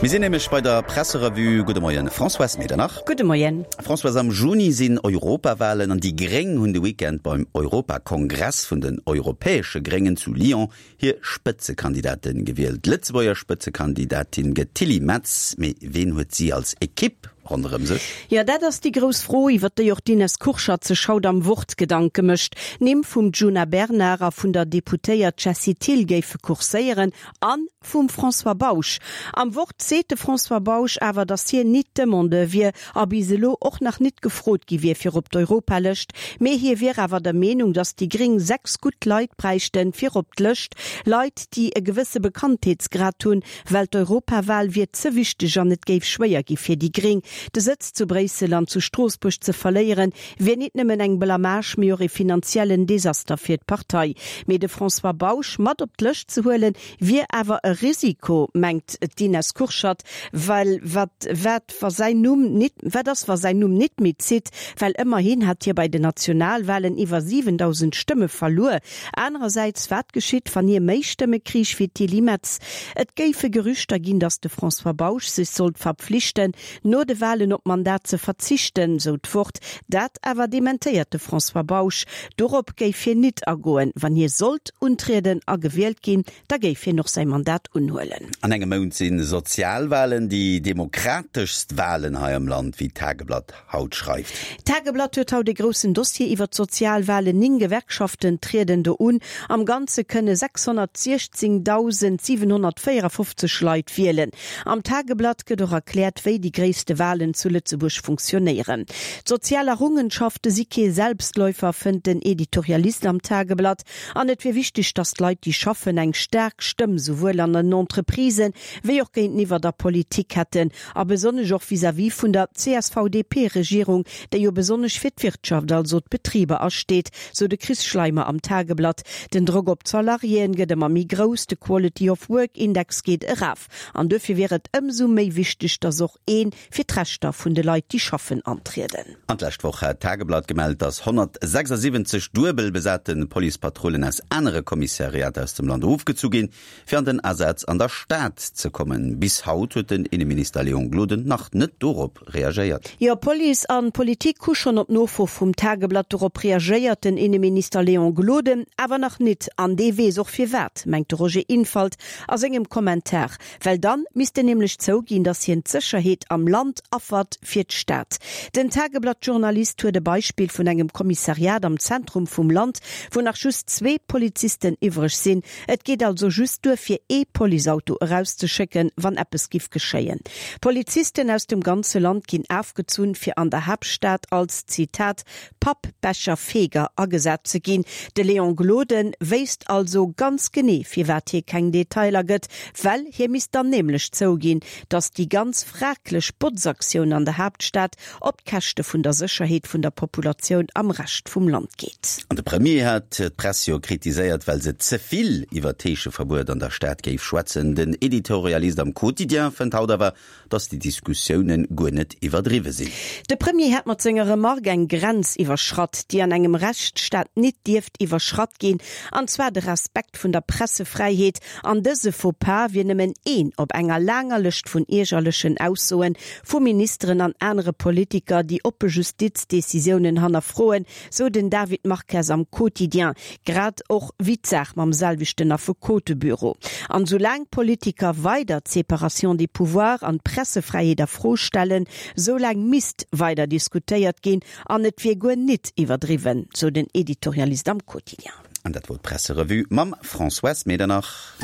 Mir sinn nämlech bei der Presserevue. Gudde Moien, Françoise Medernach. Gudde Moien. Françoise, am Juni sinn Europawalen an déi Gréng hunn de Weekend beim Europakongress vun den europäesche Gréngen zu Lyon hir Spëtzekandidate gewielt. D'Lëtzebuerger Spëtzekandidatin gëtt d'Tilly Metz, mee ween huet si als Ekipp ronderëm sech? Jo, dat ass déi grouss Fro, iwwer déi och d'Ines Kurschat sech haut am Wort Gedanke mécht. D'Nimm vum Djuna Bernard a vun der Deputéiert Jessie Thill géife kurséieren an Vum François Bausch. Am Wort seet de François Bausch awer, datt hien nit Demandeur wier a bis elo och nach nit gefrot gi wier fir op d'Europalëscht, mee hie wier awer der Meenung, datt déi Gréng 6 gutt Leit bräichten fir op d'Lëscht, Leit, déi e gewësse Bekanntheetsgrad hunn, well d'Europawal wier ze wichteg an et géif schwéier gi fir déi Gréng, de Sëtz zu Bréissel an zu Stroossbuerg ze verléieren, wier nit nëmmen eng Blamage, mee och e finanziellen Desaster fir d'Partei. Mee de François Bausch mat op d'Lëscht ze huelen, Wier awer e Risiko, mengt d'Ines Kurschat, well wat wat wa säin Numm nit wat ass wa säin Numm nit méi zitt, well ëmmerhin hat hie bei den Nationalwahlen iwwer 7.000 Stëmme verluer. Anerersäits, wat geschitt, wann hie méi Stëmme kriich wéi d'Tilly Metz? Et géife Gerüchter ginn, datt de François Bausch sech sollt verpflichten, no de Wahlen op d'Mandat ze verzichten, sou d'Wort. Dat awer dementéiert de François Bausch. Dorop géif hien nit agoen. Wann hie sollt untrieden a gewielt ginn, da géif hien och säi Mandat unhuelen. An engem Mount si Sozialwahlen, déi demokrateschst Wahlen hei am Land, wéi d'Tageblatt haut schreift. D'Tageblatt huet haut e groussen Dossier iwwer d'Sozialwahlen. 9 Gewerkschaften trieden do un. Am Ganze kënne 616.754 Leit wielen. Am Tageblatt gëtt och erkläert, wéi déi gréisste Walen zu Lëtzebuerg funktionéieren. D'sozial Errungenschafte si kee Selbstläufer, fënnt den Editorialist am Tageblatt. An et wier wichteg, datt d'Leit, déi schaffen, eng staark Stëmm souwuel an den Entreprisen, wéi och géinteniwwer der Politik hätten. A besonnesch och vis-à-vis vun der CSV-DP-Regierung, déi jo besonnesch fir d'Wirtschaft, also d'Betriber asteet, sou de Chris Schleimer am Tageblatt. Den Drock op d'Salariéen gëtt ëmmer méi grouss, de Quality of Work Index geet eraf an duerfir wier et ëmsou méi wichteg, datt och ee fir d'Rechter vun de Leit, déi schaffen, antrieden. An d'lescht Woch hat d'Tageblatt gemellt, datt 176 duebel besate Policepatrullen aus anere Kommissariater aus dem Land ofgezu ginn, fir an den Asaz an der Stad ze kommen. Bis haut huet den Inneminister Léon Gloden nach net dorop reagéiert. Jo, Police an Politik hu schonn op Nofro vum Tageblatt dorop reagéiert, den Inneminister Léon Gloden awer nach nit. An dee weess och firwat, mengt de Roger Infalt a sengem Kommentar. Well dann misst en nämlech zouginn, datt hien d'Sécherheet am Land affert fir d'Stad. Den Tageblatt-Journalist huet e Beispill vun engem Kommissariat am Zentrum vum Land, wou nach just zwee Polizisten iwwreg sinn. Et geet also just duer fir ee Policeauto erauszeschécken, wann eppes giff geschéien. Polizisten aus dem ganze Land ginn afgezunn, fir an der Haaptstad als, Zitat, Pappbecherfeger agesat ze ginn. De Léon Gloden wéisst also ganz genee, firwat hie keng Detailer gëtt, well hie misst dann nämlech zouginn, datt déi ganz fraglech Botzaktioun an der Haaptstad op d'Käschte vun der Sécherheet vun der Populatioun am Rescht vum Land geet. An de Premier hat d'Press jo kritiséiert, well se ze vill iwwer d'Heescheverbuet an der Stad géif schwätzen. Den Editorialist am Quotidien fënnt haut awer, datt déi Diskussioune guer net iwwerdriwwe sinn. De Premier hätt mat senger Remark eng Grenz iwwerschratt, déi an engem Rechtsstaat nit dierft iwwerschratt ginn, an zwar de Respekt vun der Pressefräiheet. An dëse Faux-pas wier nëmmen een op enger laanger Lëscht vun iergerlechen Aussoen vu Ministeren an anere Politiker, déi oppe Justizdecisiounen hannerfroen, sou den David Marques am Quotidien, grad och wéi d'Saach mam selwechten Affekotebüro. An soulaang d'Politiker weider d'Séparation des pouvoirs an d'Pressefräiheet a Fro stellen, soulaang misst weider diskutéiert ginn an et wier guer nit iwwerdriwwen, sou den Editorialist am Quotidien. An dat wor d'Presserevue mam Françoise Medernach.